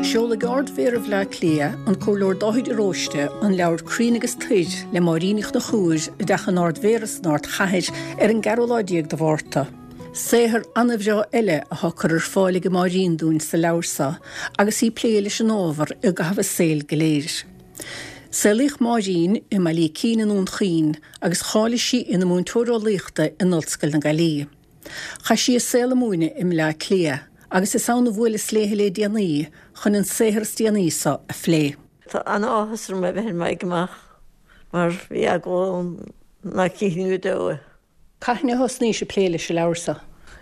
Seolfaidh Ard-Mhéara Bhaile Átha Cliath, an Comhairleoir Dáithí de Róiste, an leabhar Crainn agus Toir le Máirín Ní Chonchúir i dTeach an Ard-Mhéara san Ardchathair ar an gceathrú lá de Mhárta. Saothar an-bhreá eile atá curtha ar fáil ag Máirín dúinn sa leabhar seo agus í ag plé leis an ábhar i gcaitheamh a saoil go léir. Saolaíodh Máirín i mBaile Ícín i nDún Chaoin agus cháiligh sí ina múinteoir eolaíochta in Ollscoil na Gaillimhe. Chaith sí a saol ag múineadh i mBleá Cliath agus is ann a bhuaileas léi le déanaí chun an saothar is déanaí seo a phlé. Tá an-áthas orm a bheith ar m'aghaidh amach mar bhí eagla orm nach gcífinn go deo é. Cathain a thosnaís ag plé leis an leabhar seo?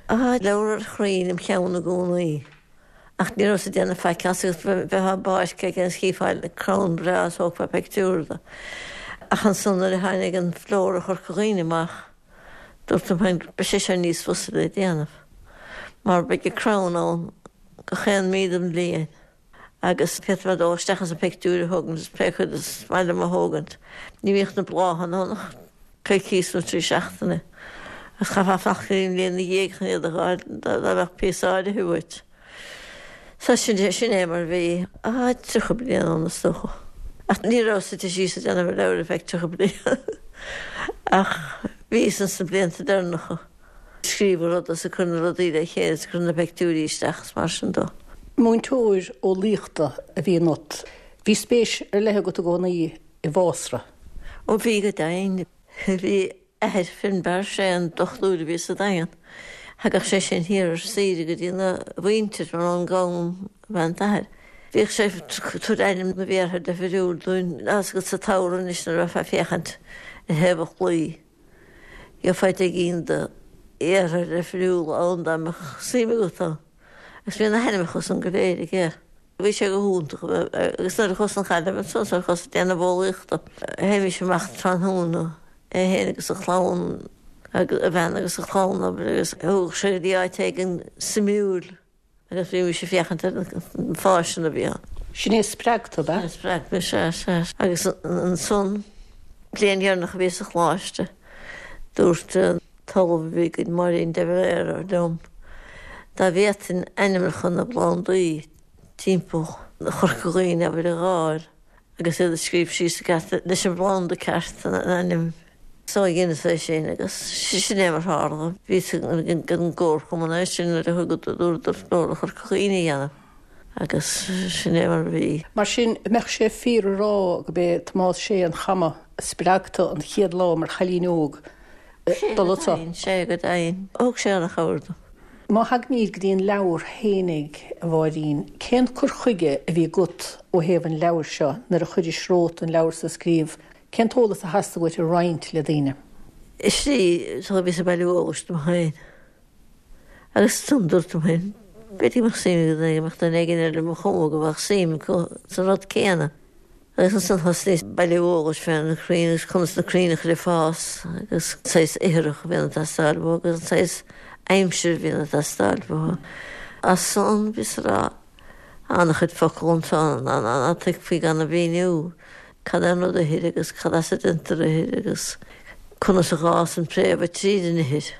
Tá leabhar ar chrainn im cheann i gcónaí ach ní rabhas ag déanamh faic as agus bheifeá i bpáirc éigin is chífeá crann breá is thógfá pictiúr de. Ach ansan nuair a tháinig an Flóra Chorca Dhuibhne amach, dúirt liom féin, beidh sé seo níos fusa le déanamh mar beidh an crann ann gach aon mí den bhliain agus féadfaidh mé dul isteach is an pictiúr a thógaint is pé cuid is maith liom a thógaint. Ní bhíodh na bláthanna ann ach coicíos nó 3 seachtaine agus chaithfeá fanacht go dtí an bhliain ina dhiaidh chun iad a fháil dá mbeadh píosa áirithe uait. So sin é, sin é mar a bhí. Ah, 30 bliain ann is dócha. Ach ní rabhas suite síos ag déanamh an leabhair ar feadh 30 bliain. Ach bhíos ins na blianta deireanacha ag scríobh an ruda is ag cur na rudaí le chéile is ag cur na peictiúirí isteach is mar sin dó. Múinteoir eolaíochta a bhí ionat. Bhí spéis ar leith agat i gcónaí i bhfásra. Ó bhí go deimhin. Bhí athair Finbar, sé an dochtúir a bhí sa Daingean. Thagadh sé sin thiar ar saoire go dtí na mhuintir mar ón gCam ab ea an t-athair. Bhíodh sé ag tabhairt ainm na bhféartha difriúil dúinn, tá 'fhios agat sa tsamhradh anois nuair a bheifeá ag féachaint ar thaobh an chlaí, gheofá deich gcinn de fhéartha difriúla ann dá mbeadh suim agat ann. Agus bhí na hainmneacha san go léir aige. Bhí sé go hiontach agus nuair a chuas chun na Gaillimhe ansan nuair a chuas ag déanamh eolaíochta, théimis amach tráthnóna, é féin agus a chlann, a bhean agus a chlann, abair, agus thugadh sé go dtí áit éigin suimiúil agus bhímis ag féachaint ar na fásanna a bhí ann. Sin é a spreag tú, ab ea? Sin é a spreag mé, sea, sea. Agus ansan, bliain dheireanach a bhíos sa choláiste, dúirt an t-ollamh a bhí againn, Máirín de Valera, liom, dá bhféadfainn ainmneacha na bplandaí timpeall Chorca Dhuibhne, abair, a dh'fháil agus iad a scríobh síos i gceart leis an bplanda ceart, an ainm. So dheineas é sin agus sin é mar tharla. Bhíos ag an gcomharchumann é sin nuair a thugadar dúradar Flóra Chorca Dhuibhne a dhéanamh agus sin é mar a bhí. Mar sin, an mbeadh sé fíor a rá gurb é Tomás Sé an Chama a spreag tú an chéad lá mar chailín óg dul anso? Sea go deimhin. Thug sé an-chabhair dom. Má thagaimid go dtí an leabhar fhéinig, a Mháirín, cén cur chuige a bhí agat ó thaobh an leabhair seo nuair a chuiris romhat an leabhar so a scríobh? Cén t-eolas a theastaigh uait a roinnt le daoine? Is é, bhíos ag bailiú eolais dom féin. Agus ansan dúirt liom féin, b'fhéidir go mbeadh suim ag duine, go mbeadh duine éigin eile ar mo chuma go mbeadh suim acu sa rud céanna. Agus ansan thosnaíos ag bailiú eolais fé na crainn agus conas na crainn a chur ag fás agus an saghas ithreach a bhíonn ag teastáil uathu agus an saghas aimsir a bhíonn ag teastáil uathu. As san bhíos ag rá an-chuid focal anso ná tuigfí gan a mhíniú cad é an rud ithir agus cad as a déantar ithir agus conas a dh'fhásann préamha tríd an ithir.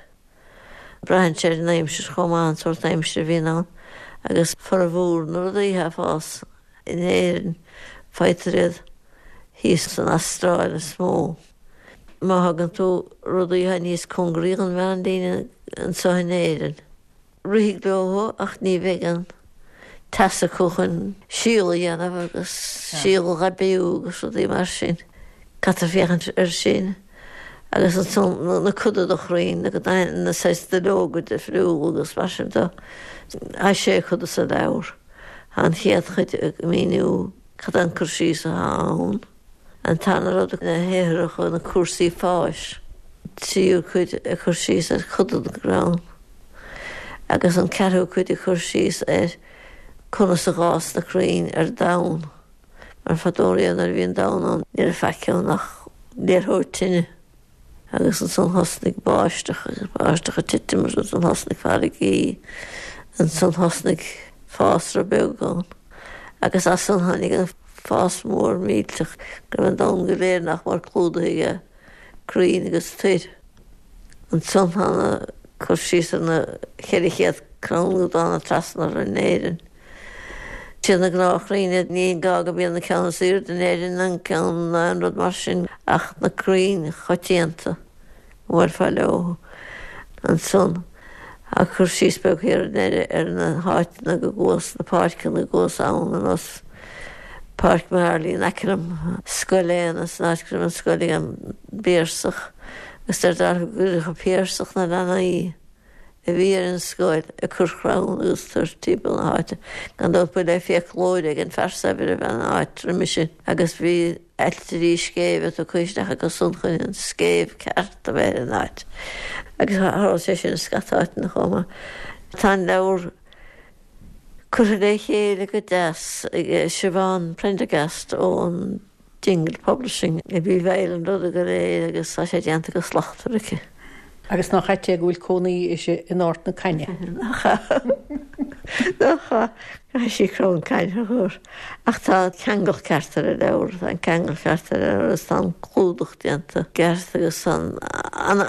Braitheann sé ar an aimsir chomh maith, an sórt aimsire a bhíonn ann, agus formhór na rudaí atá ag fás in Éirinn, faightear iad thíos san Astráil is mó. Má thagann tú rudaí atá níos cóngaraí don mheánlíne anseo in Éirinn, rithfidh leo ach ní bheidh an teas acu chun síol a dhéanamh agus síol a dh'aibiú agus rudaí mar sin. Caithfear féachaint air sin agus ansan na coda de chrainn na saghas duilleoga difriúla agus mar sin de. Tá sé choda sa leabhar. Tá an chéad chuid ag míniú cad é an cur síos atá ann. An tarna rud, na hithreacha, na cúrsaí fáis. Tríú cuid ag cur síos ar choda den gcrann. Agus an ceathrú cuid ag cur síos ar conas a dh'fhás na crainn ar domhan. Mar fadó riamh nuair a bhí an domhan ann ní raibh faic ann ach liathróid tine. Agus ansan thosnaigh báisteach agus báisteach ag titim agus ansan thosnaigh farraigí, ansan thosnaigh fásra beag ann agus as san tháinig an fás mór millteach go raibh an domhan go léir nach mór clúdaithe aige crainn agus toir. Ansan tá na cur síos ar na 400 crann go dtána trasna orainn in Éirinn. Siad na gnáthchrainn iad, ní gá go mbíonn an ceann is aoirde in Éirinn an ceann ná aon rud mar sin ach na crainn choitianta go mbuailfeá leo ansan. Tá cur síos beag thiar i ndeireadh ar na háiteanna go gcuas, na páirceanna go gcuas ann ar nós Páirc Marley in aice liom, Scoil Éanna san áit go raibh an scoil ag an bPiarsach agus deir Darach go gcuireadh an Piarsach na leanaí a bhí ar an scoil ag cur crann agus toir timpeall na háite. Gan dabht ba le fiaclóir ag an fear saibhir a bhí an áit roimhe sin agus bhí ailtirí scéimhe tugtha isteach acu san chun an scéimh ceart a bheith ar an áit. Agus tharla sé sin i scata áiteanna chomh maith. Tá an leabhar curtha le chéile go deas ag Siobhán Prendergast ón Dingle Publishing a bhí i bhfeighil an ruda go léir agus tá sé déanta go slachtmhar aici. Agus nach ait é go bhfuil cónaí uirthi in Ard na Caithne? Nach ea? Nach ea? Caithfidh sí crann cainne a chur. Ach tá ceangal ceart ar an leabhar, tá an ceangal ceart ar an leabhar agus tá an clúdach déanta ceart agus tá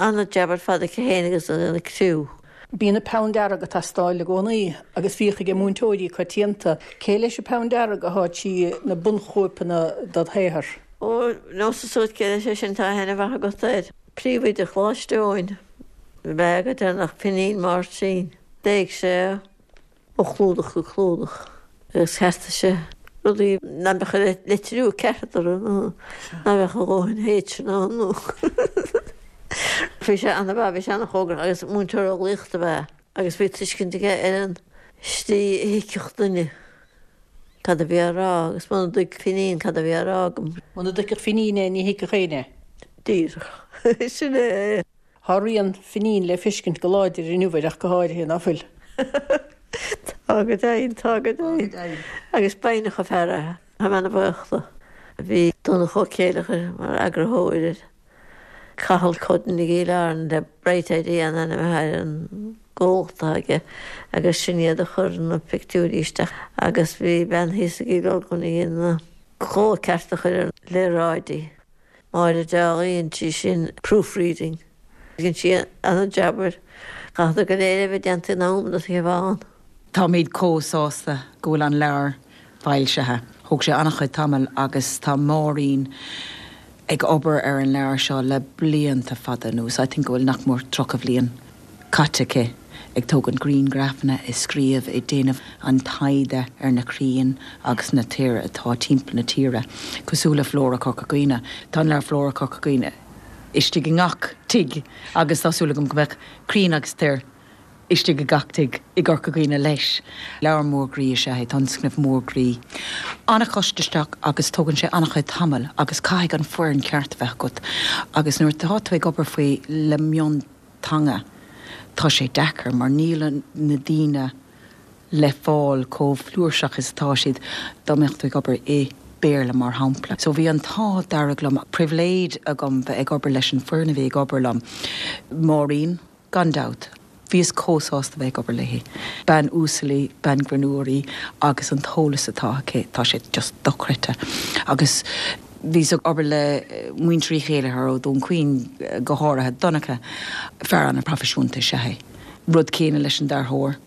an-jab ar fad aici féin agus an criú. Bíonn an peann dearg ag teastáil i gcónaí agus bhíodh ag múinteoirí coitianta. Cé leis an peann dearg atá trí na bunchóipeanna dod shaothar? Ó, neosad suas cé leis é sin, tá aithne mhaith agat air. Príomhoide Choláiste Eoin ab ea go deireanach, Finín Máirtín. Léigh sé é ó chlúdach go clúdach agus cheartaigh sé rudaí nach mbeadh an litriú ceart orthu nó nach mbeadh a dhóthain H-anna ann nó Bhí sé ana-mhaith, bhí sé ana-chóngarach agus múinteoir eolaíochta ab ea agus bhí tuiscint aige ar an slí a thuigfeadh duine cad a bhí á rá agus muna dtuig Finín cad a bhí á rá agam. Muna dtuigfeadh Finín é ní thuigfeadh éinne é. Díreach. Sin é. Tá rian Finín le feiscint go láidir inniu air ach go háirithe, ná fuil? Tá go deimhin, tá go deimhin. Agus b'fhoighneach an fear é. Tá mé ana-bhuíoch dó. Bhí Donncha Ó Céileachair mar eagarthóir air. Cathal Cudden i gCill Airne le Bright Idea an ainm atá ar an gcomhlacht atá aige agus sin iad a chuir na pictiúirí isteach agus bhí bean thíos i gCill Olcáin a dhein na cló ceart a chur ar na léaráidí. Máire Dálaigh, dhein sí sin proofreading. Dhein sí ana-jab air. Chaithfeadar go léir a bheith déanta in am do Shiobhán. Táimid chomh sásta go bhfuil an leabhar foilsithe. Thóg sé an-chuid tamaill agus tá Máirín ag obair ar an leabhar seo le blianta fada anuas. I think go bhfuil nach mór 30 bhliain caite aici ag tógaint grianghrafanna, ag scríobh, ag déanamh an taighde ar na crainn agus na toir atá timpeall na tíre, cosúil le Flóra Chorca Dhuibhne. Tá an leabhar Flóra Chorca Dhuibhne istigh i ngach tigh agus tá súil agam go mbeadh Crainn agus Toir istigh i gach tigh i gCorca Dhuibhne leis. Leabhar mór groí is ea é, tionscnamh mór groí. An-chostasach agus tógann sé an-chuid tamaill agus caithfidh an foireann ceart a bheith agat agus nuair atá tú ag obair faoi le mionteanga tá sé deacair mar níl na daoine le fáil chomh flúirseach is atá siad dá mbeadh tú ag obair i Béarla mar shampla. So bhí an t-ádh dearg liom, pribhléid agam bheith ag obair leis an foireann a bhí ag obair liom. Máirín, gan dabht. Bhíos chomh sásta bheith ag obair léi. Bean uasal í, bean greannmhar í agus an t-eolas atá aici, tá sé just dochreidte. Agus bhíos ag obair le muintir Uí Chéileachair ó Dhún Chaoin, go háirithe Donncha, fear an-phroifisiúnta is ea é. Rud céanna leis an dearthóir.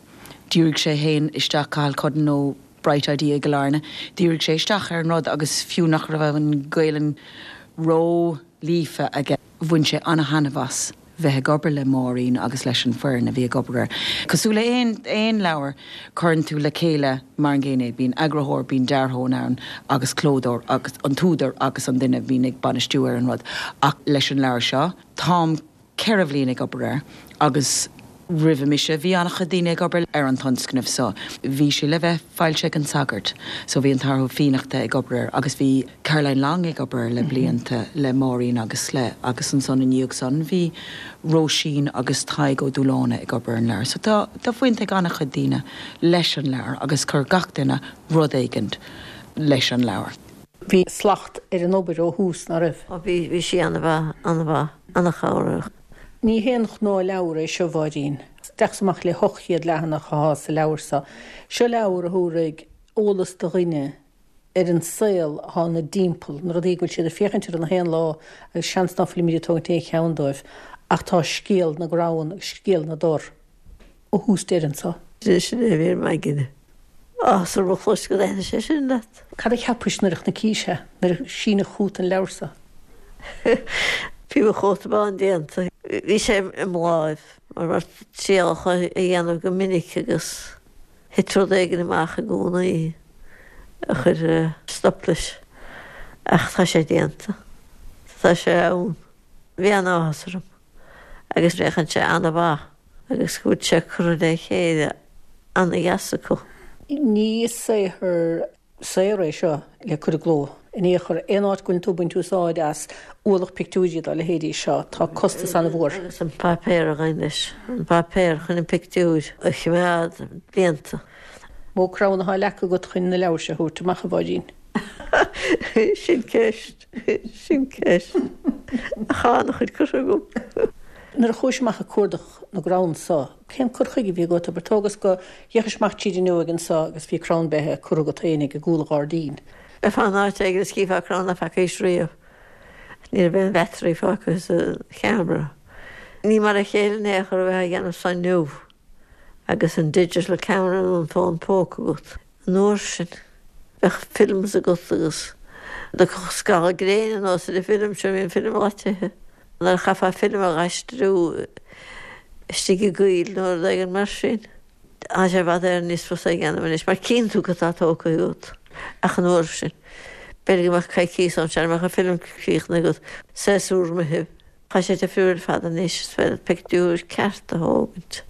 Dhírigh sé féin isteach, Cathal Cudden ó Bright Idea i gCill Airne, dhírigh sé isteach ar an rud agus fiú nach raibh an Ghaelainn ró-líofa aige, bhain sé an-thaitneamh as bheith ag obair le Máirín agus leis an foireann a bhí ag obair air. Cosúil le aon aon leabhar, cuireann tú le chéile mar an gcéanna é, bíonn eagarthóir, bíonn dearthóir ann agus clódóir agus an t-údar agus an duine a bhíonn ag bainistiú ar an rud. Ach leis an leabhar seo, táim 4 bhliain ag obair air agus roimhe mise bhí an-chuid daoine ag obair ar an tionscnamh so. Bhí sé le bheith foilsithe ag an Sagart so bhí an tAthair Ó Fiannachta ag obair air agus bhí Caroline Long ag obair air le blianta le Máirín agus le agus ansan i ndiaidh san bhí Róisín agus Tadhg Ó Dúláine ag obair ar an leabhar. So tá tá baint ag an-chuid daoine leis an leabhar agus chuir gach duine rud éigint leis an leabhar. Bhí slacht ar an obair ó thús, ná raibh? Ó bhí, bhí sí an-mhaith, an-mhaith, an-chabhrach. Ní haon ghnáthleabhar é seo, a Mháirín. Isteach is amach le 800 leathanach athá sa leabhar seo. Seo leabhar a thabharfaidh eolas do dhuine ar an saol athá ina dtimpeall, na rudaí go bhfuil siad ag féachaint orthu na haon lá agus seans ná fuilimid ag tógaint aon cheann dóibh ach tá scéal na gcrann agus scéal na dtor ó thús deireadh anso. Sin é a bhí ar m'aigne. Áthas orm a chlos go dtaitnigh sé sin leat. Cad a cheapais nuair a chnaicís é, nuair a síneadh chugat an leabhar so? Bhí mo chóta bán déanta. Bhí sé i mo láimh mar mar trialacha a dhéanamh go minic agus thit rud éigin amach i gcónaí a chuir stop leis. Ach tá sé déanta. Tá sé ann. Bhí an-áthas orm agus féachann sé an-mhaith agus go bhfuil sé curtha le chéile an-dheas acu. Ní saothar saor é seo le cur i gcló in aon chor. Aon áit go bhfuileann tú ag baint úsáid as ualach pictiúirí dá leithéidí seo, tá costas an-mhór. Agus an páipéar a ghabhann leis, an páipéar chun an pictiúir a choimeád blianta. Mó crann atá leagtha agat chun na leabhair seo a thabhairt amach, a Mháirín? Sin ceist. Sin ceist. Ach tá an-chuid curtha agam. Nuair a chuais amach ag cuardach na gcrann so, cén cur chuige a bhí agat? Abair, tógas go bhféachais amach tríd an fhuinneog anso agus bhí crann beithe curtha agat féinig i gcúl an ghairdín. Bheifeá in áit éigin is chífeá crann ná feacaís riamh. Ní raibh aon battery fágtha sa cheamara. Ní mar a chéile in aon chor a bheith á dhéanamh san inniu agus an digital camera nó an fón póca agat. An uair sin, bheadh films agat agus thiocfadh scamall gréine anuas ar an bhfilm seo, bhí an film daite. Nuair a chaithfeá film a dh'aistriú istigh i gcoill nó rud éigin mar sin, tá sé i bhfad Éireann níos fusa a dhéanamh anois mar cíonn tú cad tá tógtha agat. Ach an uair sin, b'fhéidir go mbeadh coicíos ann sara mbeadh an film críochnaithe agat, séasúr imithe. Tá sé difriúil ar fad anois, is féidir pictiúr ceart a thógaint.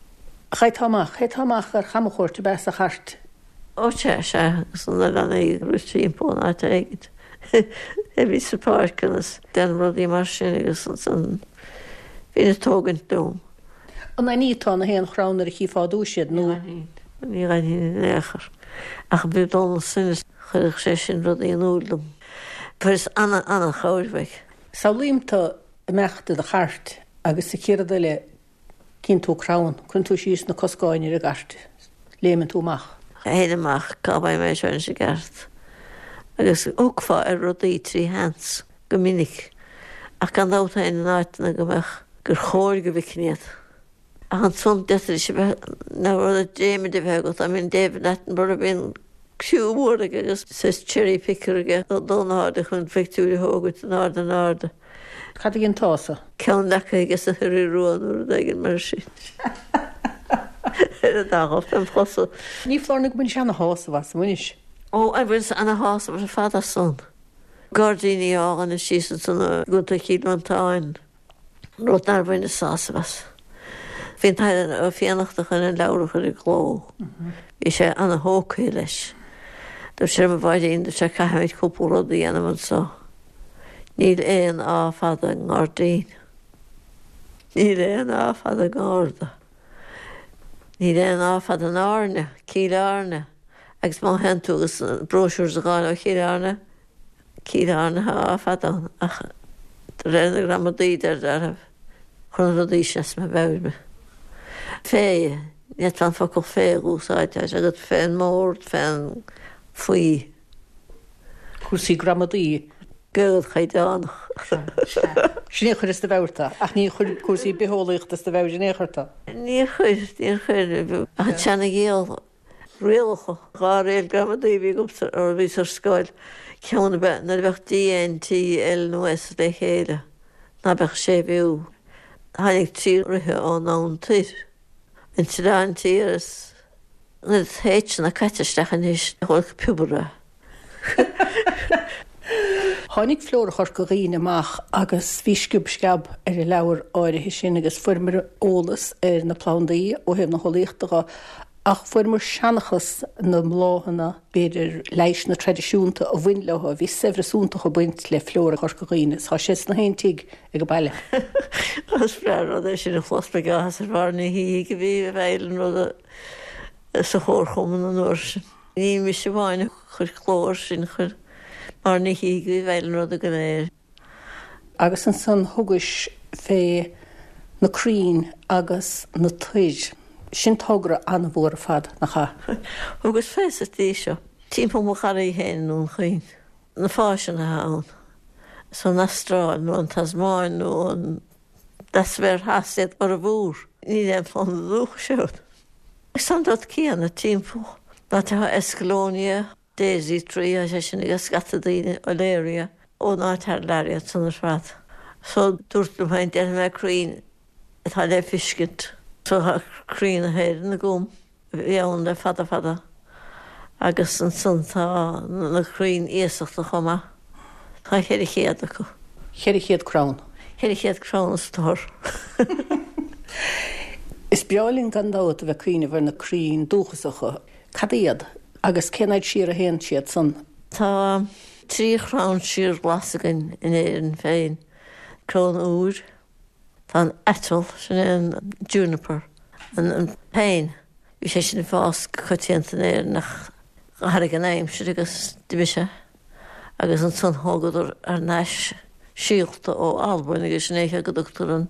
Théiteá amach, théiteá amach ar chamchuairt ab ea sa chairt? Ó sea, sea, agus na leanaí ag rith timpeall in áit éigint. Bhí sa pháirc agus déanamh rudaí mar sin agus ansan bhínn ag tógaint liom. An aithníteá na haon chrann nuair a chífeá i dtús iad nó? Ní aithnínn, ní aithnínn in aon chor. Ach bhí Dónal Synott, chuireadh sé sin rudaí in iúl dom. Fuaireas ana-ana-chabhair uaidh. Samhlaím tú ag imeacht i do chairt agus sa chéad rud eile cíonn tú crann, cuireann tú síos na coscáin ar an gcairt, léimeann tú amach. Théinn amach, cá bhfaighidh mé seo anois i gceart? Agus thiocfá ar rudaí trí sheans go minic, ach gan dabht théinn in áiteanna go mbeadh, gur chóir go bhfeicfinn iad. Ach ansan d'fhéadfaidís a bheith, na rudaí dréimire a bheith agat, I mean David Attenborough bíonn criú mór aige agus saghas cherry picker aige dul in airde chun pictiúir a thógaint in airde in airde. Cad a dhéanfása? Ceann leagtha aige sa Ioraí Rua nó rud éigin mar sin. Ar an dá ghob dem chosa. Ní foláir nó go mbainis ana-shásamh as, an mbainis? Ó, bhaineas ana-shásamh ar fad as san. Gairdíní álainne síos ansan i gContae Chill Mhantáin. rud nár bhaineas sásamh as. Bhí an tAire Ó Fiannachta chun an leabhar a chur i gcló. Bhí sé ana-thógtha leis. Dúirt sé liom, a Mháirín, dúirt sé, caithfimid cúpla rud a dhéanamh anso. Níl aon A fada i ngairdín. Níl aon A fada i ngarda. Níl aon A fada in Airne, Cill Airne. Agus má théann tú agus brochures a dh'fháil ó Chill Airne, Cill Airne tá A fada ann ach de réir na gramadaí deir deartháir chuir na rudaí sin as mo mheabhair mé. Fé, ní fhéadfá an focal fé a úsáid, tá sé agat fén mbord, fén, faoi. Cúrsaí gramadaí. Gaeilge chaighdeánach. Sin é a chuir as do mheabhair tú, ach ní chuir cúrsaí bitheolaíochta as do mheabhair in aon chor tú. Níor chuir, níor chuir, ach an tseana-ghiall. Rialacha, 2 riail gramadaí a bhí agamsa nuair a bhíos ar scoil, ceann ab ea nuair a bheadh D, N, T, L nó S le chéile, ná beadh séimhiú. Tháinig 3 ríthe ón abhainn toir, an tOileán Tiar is an oiread H-anna caite isteach anois, nach bhfuil piobar a. Tháinig Flóra Chorca Dhuibhne amach agus bhí sciob sceab ar an leabhar áirithe sin agus fuaireamar eolas ar na plandaí ó thaobh na heolaíochta dho ach fuaireamar seanchas na mbláthanna, b'fhéidir leigheasanna traidisiúnta a bhain leo. Bhí saibhreas iontach ag baint le Flóra Chorca Dhuibhne is tá sé sna haon tigh ag an baile. Is breá an rud é sin a chlos, beidh áthas ar Mháire Ní Shíthigh a bhí i bhfeighil an ruda sa chomharchumann an uair sin. Ní mise amháin a chuir cló air sin, chuir Máire Ní Shíthigh a bhí i bhfeighil an ruda go léir. Agus ansan thugais fé na crainn agus na toir. Sin togra an-mhór ar fad, nach ea? Thugas fé sa tslí seo, timpeall mo gharraí féin i nDún Chaoin, na fásanna atá ann, is ón Astráil nó an Tasmáin nó an Leathsféar Theas iad formhór. Níl aon phlanda dúchais ann. Agus an rud céanna timpeall. Ná tá Escallonia Daisy Tree, tá sé sin ag scata daoine Olearia ón áit thar lear iad san ar fad. So dúrt liom féin déanfaidh mé crainn atá le fiscint. So tá crainn na hÉireann agam a bhí ann le fada fada agus ansan tá na crainn iasachta chomh maith. Tá 400 acu. 400 crann? 400 crann a stór. Is breá linn gan dabht a bheith ag cuimhneamh ar na crainn dúchasacha. Cad iad agus cén fhad siar a théann siad san? Tá 3 chrann síorghlas againn in Éirinn féin, crann iúir, tá an aiteal, sin é an juniper, an péin, bhí sé sin ag fás go coitianta in Éirinn ach d'athraigh an aimsir agus d'imigh sé agus ansan thógadar thar n-ais síolta ó Albain agus sin é an chaoi go dtugtar an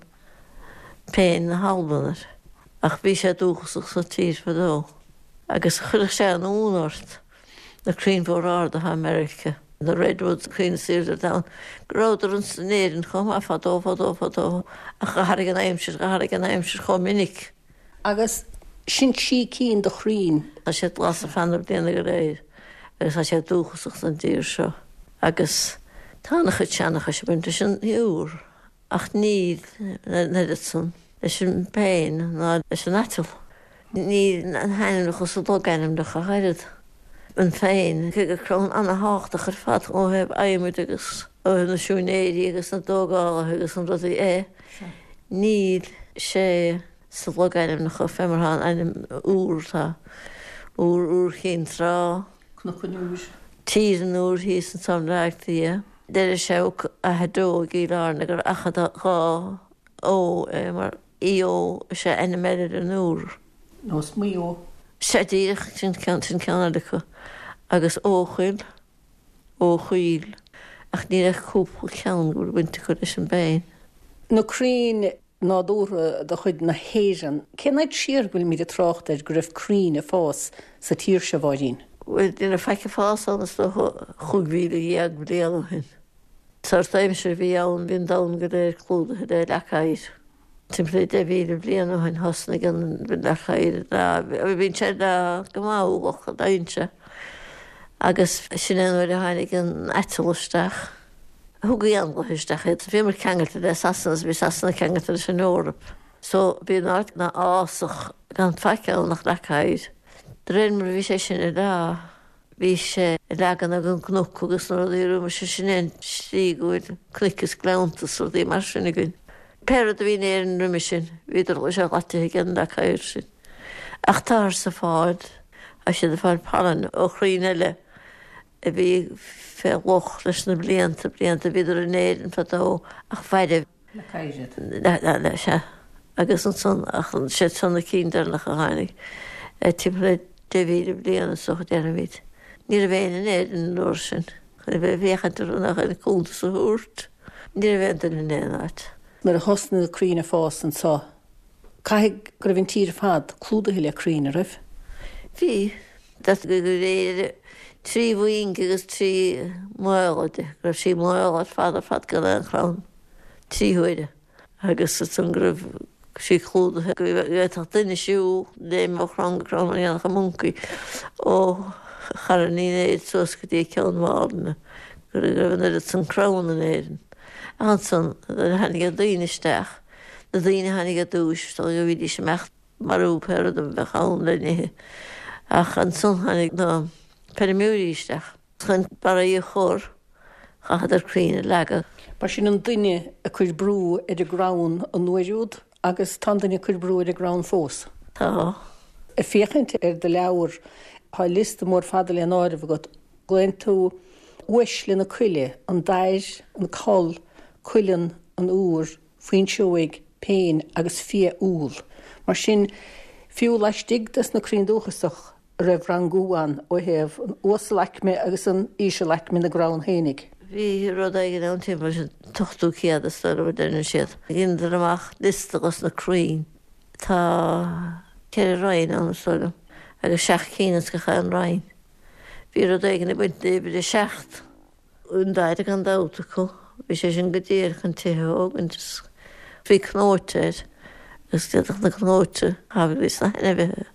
péin na hAlban air. Ach bhí sé dúchasach sa tír fadó. Agus chuirfeadh sé an ionadh ort, na crainn mhóra arda atá i Meiriceá, na redwoods, crainn is aoirde ar domhan, go rabhadar ins in Éirinn chomh maith fadó, fadó, fadó, ach d'athraigh an aimsir, d'athraigh an aimsir chomh minic. Agus sin trí cinn de chrainn. Tá siad glas ar feadh na bliana go léir agus tá siad dúchasach don dtír seo. Agus tá an-chuid seanchais ag baint leis an iúr. Ach níl an oiread san leis an bpéin ná leis an aiteal. Níl na hainmneacha sa logainmneacha ach oiread. An phéin, cé gur crann ana-thábhachtach ar fad ó thaobh adhmaid agus ó thaobh na siúinéirí agus na dtógálaithe agus na rudaí é, níl sé sa logainmneacha fé mar atá an ainm iúr, tá Iúr, Iúr Chinn Trá. Cnoc an Iúir. Tír an Iúir thíos anso i mBleá Cliath. Deireadh sé Ó Achadh Deo i gCill Airne gur Achadh Dhá Ó é mar Eo is ea ainm eile ar an iúr. Nó is Maigh Eo. Sea díreach, sin ceann sin ceann eile acu. Agus Eochaill, Eochoill, ach níl ach cúpla ceann go bhfuil baint acu leis an bpéin. Na crainn nádúrtha de chuid na hÉireann. Cén fhad siar go bhfuilimid ag trácht air go raibh crainn ag fás sa tír seo, a Mháirín? Bhuel, ní raibh faic ag fás ann is dócha 15,000 bliain ó shin. Sórt aimsir a bhí ann, bhí an domhan go léir clúdaithe le leac oighir. Timpeall le 10,000 bliain ó shin thosnaigh an leac oighir ag leá, bíonn sé ag leá go mall ach leánn sé. Agus sin é an uair a tháinig an aiteal isteach. Thug éanlaithe isteach iad. Bhíomar ceangailte le Sasana is bhí Sasana ceangailte leis an Eoraip. So bhí an áit ina fhásach gan faic ann ach leac oighir. De réir mar a bhí sé sin ag leá, bhí sé ag leagan ag an gcnoc agus na rudaí roimis sin é an tslí go bhfuil cnoic is gleannta is rudaí mar sin againn. Pé rud a bhí in Éirinn roimis sin, bhíodar sé dhaite ag an leac oighir sin. Ach táthar ag fáil, tá siad ag fáil pailin ó chrainn eile. a bhí fé loch leis na blianta, blianta, bhíodar in Éirinn fadó ach mhairbh. Leac oighir iad. Le, sea. Agus ansan, ach siad seo na cinn deireanacha a tháinig, timpeall le 10,000 bliain is dócha déarfaimid. Ní raibh éinne in Éirinn an uair sin chun a bheith ag féachaint orthu ná chun cuntas a thabhairt. Ní raibh aon duine in aon áit. Nuair a thosnaigh na crainn ag fás anso, caithfidh go raibh an tír ar fad clúdaithe le crainn, a raibh? Bhí. D'fhéadfadh gur éirigh 3 mhuinge agus 3 maola di, go raibh sí maol ar fad ar fad gan aon chrann, 3 huaire, agus ansan go raibh sí clúdaithe, go bhféadfadh duine siúl, léim ó chrann go crann mar a dhéanfadh an moncaí, ó Charn Uí Néill suas go dtí Ceann Mhálanna, go raibh an oiread san crann in Éirinn. Ach ansan, nuair a tháinig na daoine isteach, na daoine a tháinig ar dtúis, is dóigh go bhídís ag imeacht, marú pé rud a bheadh ann le n-ithe. Ach ansan tháinig na feirmeoirí isteach chun barraí a chur, chaitheadar crainn a leagadh. Ba sin an duine ag cur brú ar an gcrann an uair úd agus tá an duine ag cur brú ar an gcrann fós. Tá. Ag féachaint ar do leabhar, tá liosta mór fada le n-áireamh agat. Glaonn tú uaisle na coille, an dair, an coll, cuileann, an iúr, fuinseoig, péin agus fia-úll. Mar sin, fiú laistigh des na crainn dúchasach a raibh rangú ann ó thaobh an uasalaicme agus an ísealaicme na gcrann fhéinig. Bhí rud éigin ann timpeall leis an t-ochtú céad is dóigh liom a deireann siad. Dheineadar amach liosta dos na crainn. Tá ceithre roinn ann is dóigh liom agus seacht cinn ins gach aon roinn. Bhí rud éigin ag baint le uimhir a seacht. An dair gan dabht acu. Bhí sé sin go díreach chun tithe a thógaint is bhí cnóite air agus d'fhéadfadh na cnóite a thabhairt dos na hainmhithe.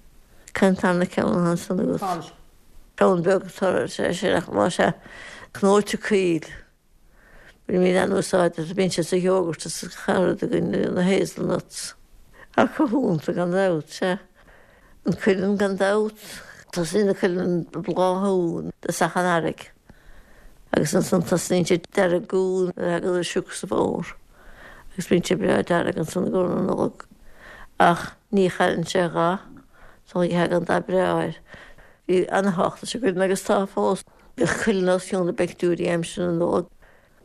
Cén tarna ceann atá ansan agat? Coll. Crann beag atá sé sin ach tá sé cnóite caol. Bainimid an-úsáid as, bíonn sé sa yogurt is sa charad againn, na hazelnuts. Tá cothúnta gan dabht, sea. An cuileann gan dabht. Tosaíonn an cuileann ag bláthú i dtosach an earraigh agus ansan tosnaíonn sé ag deargú nuair a thagann an sioc sa bhfómhar agus bíonn sé breá dearg ansan i gcomhair na Nollag. Ach ní chailleann sé a dhath, sula dtagann dath breá air. Bhí ana-thábhacht leis an gcuileann agus tá fós. Bhíodh cuileann os cionn na bpictiúirí aimsir na Nollag.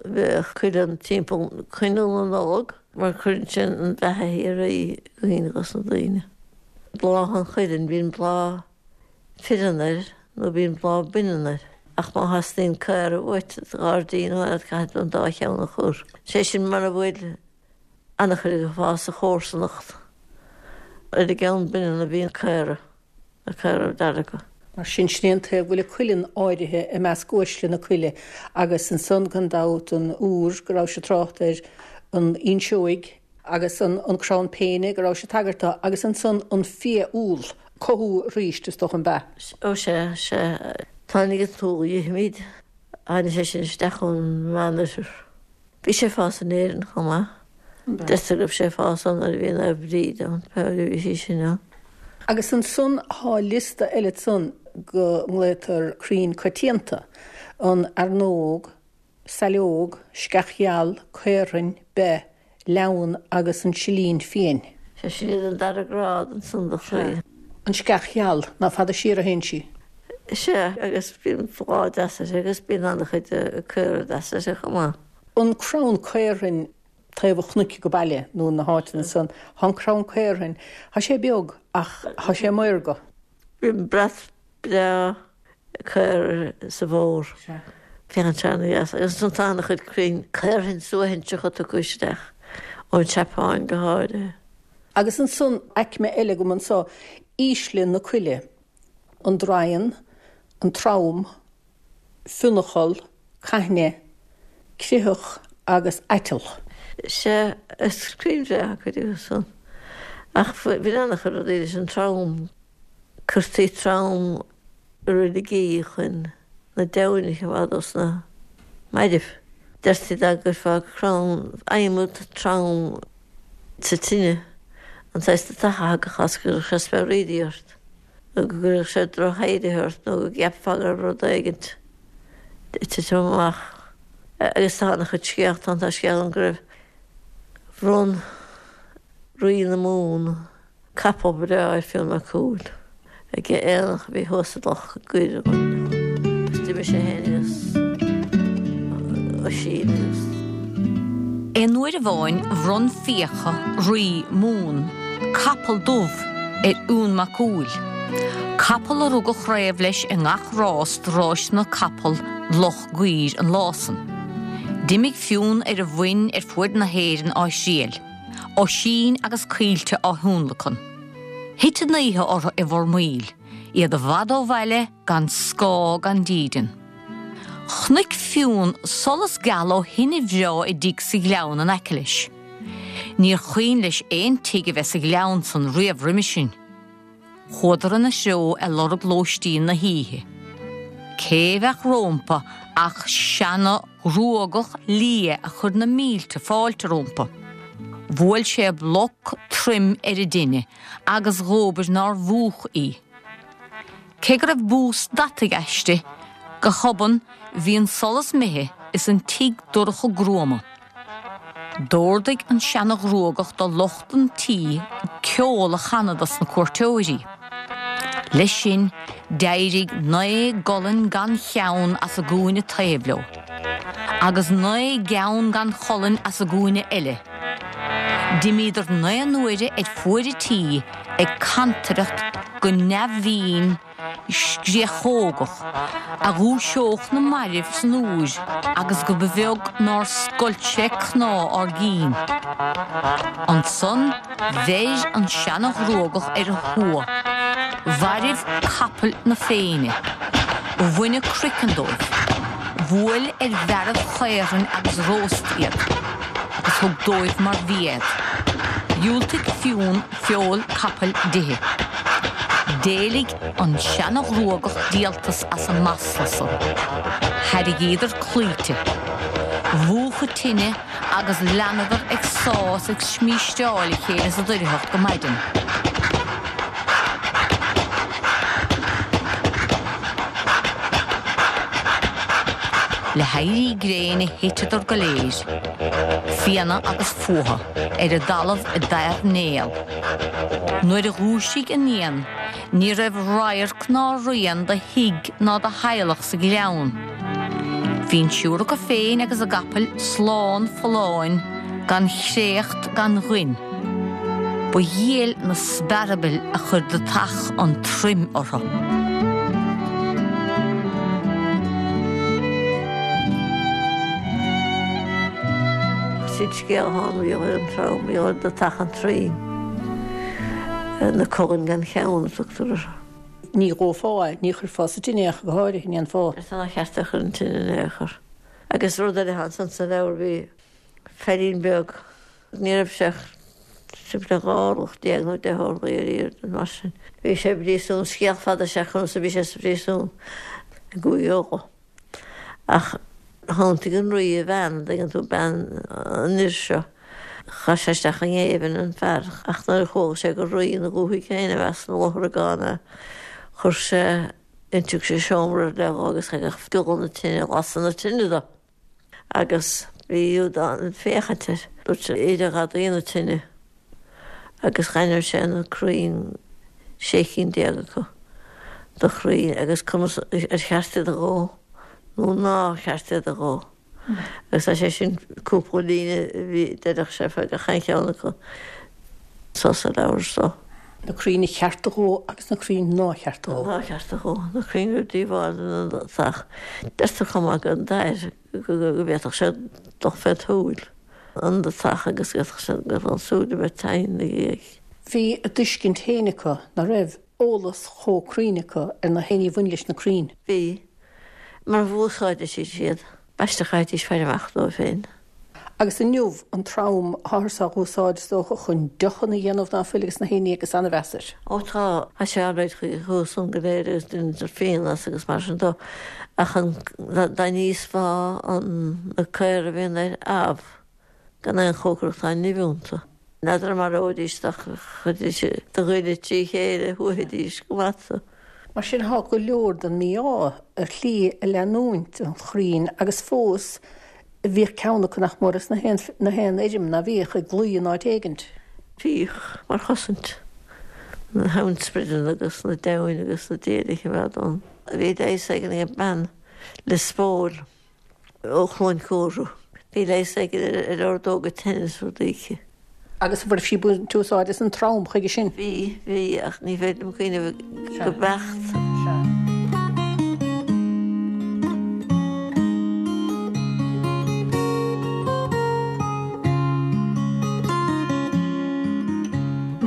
Bheadh cuileann timpeall coinneal na Nollag mar cuireann sé an bheatha shíoraí i gcuimhne dos na daoine. Bláth an chuilinn, bíonn bláth fireann air nó bíonn bláth baineann air ach má theastaíonn caora uait sa ghairdín nó aon áit caithfidh tú an dá cheann a chur. Sé sin mura bhfuil an-chuid ag fás sa chomharsanacht. Ar an gceann baineann a bhíonn caora. Na caora dearga. Mar sin, sin é an taobh go bhfuil an cuileann áirithe i measc uaisle na coille agus ansan gan dabht an iúr go rabhais ag trácht air, an fhuinseoig agus an crann péine go rabhais ag tagairt dó agus ansan an fia-úll, cothú arís is dócha an b'ea? Ó sea, sea. Tháinig an t-úll a dh'ithimid, tháinig sé sin isteach ón Meánoirthear. Bhí sé ag fás in Éirinn chomh maith. Deirtear go raibh sé ag fás ann nuair a bhí Naomh Bríd ann, pé uair a bhí sí sin ann. Agus ansan thá liosta eile ansan go nglaotar crainn coitianta, an fhearnóg, saileog, sceach gheal, caorthainn, beith, leamhan agus an silín fiain. Sea, sin iad an dara grád ansan de chrainn. An sceach gheal, ná fada siar a théann sí. Sea, agus bíonn bláth deas uirthi agus bíonn an-chuid caora deasa uirthi chomh maith. An crann caorthainn taobh an chnoic go baile nó na háiteanna san, thá an crann caorthainn, thá sé beag ach thá sé maorga. Bíonn brat breá caora sa bhfómhar. Sea. Féachann sé ana-dheas. Agus ansan tá an-chuid crainn caorthainn suaithinseacha tugtha isteach, ón tSeapáin go háirithe. Agus ansan aicme eile agam anso, ísle na coille. an draighean, an trom, fionncholl, caithne, critheach agus aiteal. Sea, is crainn bhreátha cuid acu san. Ach bhí an-chuid rudaí leis an trom. Cuirtí trom i reiligí chun na deamhain a choimeád os na mairbh. Deirtí dá gcuirfeá crann adhmad trom sa tine, an saghas deatach a thagadh as go gcuirfeadh sé speabhraídí ort, nó go gcuirfeadh sé droch-éirithe ort, nó go gceapfá go raibh rud éigint ag titim amach. Agus tá an-chuid scéalta ann, tá scéal ann go raibh, bhronn Rí na Mumhan Capall breá ar Fionn Mac Cumhaill ag aonach a bhí thuas i Loch gCuir agus d'imigh sé féin agus Oisín agus. Aon uair amháin bhronn Fiacha, rí Mumhan, capall dubh ar Fhionn Mac Cumhaill, capall a rug an chraobh leis i ngach rás de ráiseanna capall Loch gCuir an lá san. D'imigh Fionn ar a mhuin ar fuaid na hÉireann á thriail. Oisín agus Caoilte á thionlacan. Thit an oíche orthu i bhFormaoil, iad i bhfad ó bhaile, gan scáth gan dídean. Chonaic Fionn solas geal ó thine bhreá i dtigh sa ghleann in aice leis. Níor chuimhin leis aon tigh a bheith sa ghleann san riamh roimhe sin. Chuadar ina threo ag lorg lóistín na hoíche. Cé bheadh rómpa ach seana ghruagach liath a chuir na mílte fáilte rómpa. Bhuail sé bloc troim ar an dtine agus dhóbair nár mhúch í. Cé go raibh bús deataigh aisti, go hobann bhí an solas imithe is an tigh dorcha gruama. D'órdaigh an seana-ghruagach do lucht an tí ceol a chanadh dos na cuairteoirí. Leis sin, d'éirigh 9 gcolainn gan cheann as an gcúinne taobh leo, agus 9 gceann gan cholainn as an gcúinne eile. D'imíodar 9 n-uaire ar fuaid an tí ag cantaireacht go neamhbhinn, scréachógach a dhúiseodh na mairbh san úir agus go ba bheag nár scoilt sé cnámh ár gcinn. Ansan bheir an seana-ghruagach ar a thua, mhairbh capaill na Féinne, bhain a gcraiceann dóibh, bhuail ar mhearbh-chaorthainn agus róst iad, agus thug dóibh mar bhia iad. Dhiúltaigh Fionn feoil capaill d'ithe. D'éiligh an seana-ghruagach díoltas as an masla san. Thairrigíodar claíte. Mhúchadh tine agus leanadar ag sá is ag smísteáil a chéile sa doircheacht go maidin. Le héirí gréine thiteadar go léir, fianna agus fuatha, ar an dtalamh i dtairnéal. Nuair a dhúisigh an fhiann ní raibh radharc ná rian de thigh ná de theaghlach sa ghleann. Bhí an triúr acu féin agus a gcapaill slán folláin gan chréacht gan ghoin. Ba dhiail na spearbaill a chuir dutach an troim orthu. Sin scéal atá ann, bhí an trom, bhí an dutach an troim, na cogain gan cheann a tugtar orthu. Ní dhófá é, ní chuirfeá sa tine é ach go háirithe, ní dhéanfá. Is nár cheart é a chur an tine in aon chor. Agus rud eile atá ansan sa leabhar, bhí feairín beag, ní raibh sé ach timpeall 12 orlach nó 10 orlaí ar airde, mar sin. Bhí sé i bpríosún, scéal fada is ea conas a bhí sé sa phríosún i gCúige Uladh. Ach thiontaigh an rí a bhean, an dtuigeann tú, bean an fhir seo. Chaith sé isteach i ngéibheann an fear, ach nuair a chuala sé gur rí ina dhúthaigh féin a bheas ina luthragán é, chuir sé, d'iontaigh sé seomra ar leith dhó agus thagadh giolla na tine, lasadh na tine dó. Agus bhí Iúdán ag féachaint air. Dúirt sé, Éireoidh gadaí na tine. Agus ghainm sé na crainn, 16 cinn acu de chrainn, agus conas ar cheart iad a dhó nó nár cheart iad a dhó. Agus tá sé sin cúpla líne a bhí deireadh sé fá gach aon cheann acu so sa leabhar so. Na crainn a cheart a dhó agus na crainn nár cheart a dhó. Nár cheart a dhó. Na crainn a raibh díobháil don dutach. Deirtear chomh maith go dair go bhféadfadh sé dul fé tsúil an dutach agus go bhféadfadh sé go raibh an tsúil a bheith tinn ina dhiaidh. Bhí a dtuiscint féin acu, ná raibh eolas chomh cruinn acu ar na héinní a bhain leis na crainn. Bhí. Mar dh'úsáideadh siad iad. B'aisteach a fhaighidís faire amach dóibh féin. Agus inniu, an trom, táthar á úsáid, is dócha, chun deochanna a dhéanamh ná fuil agus na héinní agus an-mheas air. Ó tá, tá sé an-réidh chuige san go léir agus deintear fíon as agus mar sin dó. Ach an, dá n-íosfá an, na caora a bhíonn air, amh, gan aon chócaireacht tá nimh iontu. N'fheadar an maróidís dá chuirfidís do ghoile trí chéile, shuaithfidís go maith tú. Mar sin tá go leor den mí-ádh ar shlí ag leanúint an chrainn agus fós bhíodh ceann acu nach mór as na haon na haon fheirm ná bhíodh ag luí in áit éigint. Bhíodh, mar chosaint, na hamhainnsprideanna agus na deamhain agus na diail a choimeád ann. Bhí leigheas éigin ag bean Lios Póil. ó Chluain Cúra. Bhí leigheas éigin ar ordóga teinnis rudaí aici. Agus an raibh sí ag baint úsáid as an trom chuige sin? Bhí, bhí, ach ní féidir liom cuimhneamh go beacht. Sea.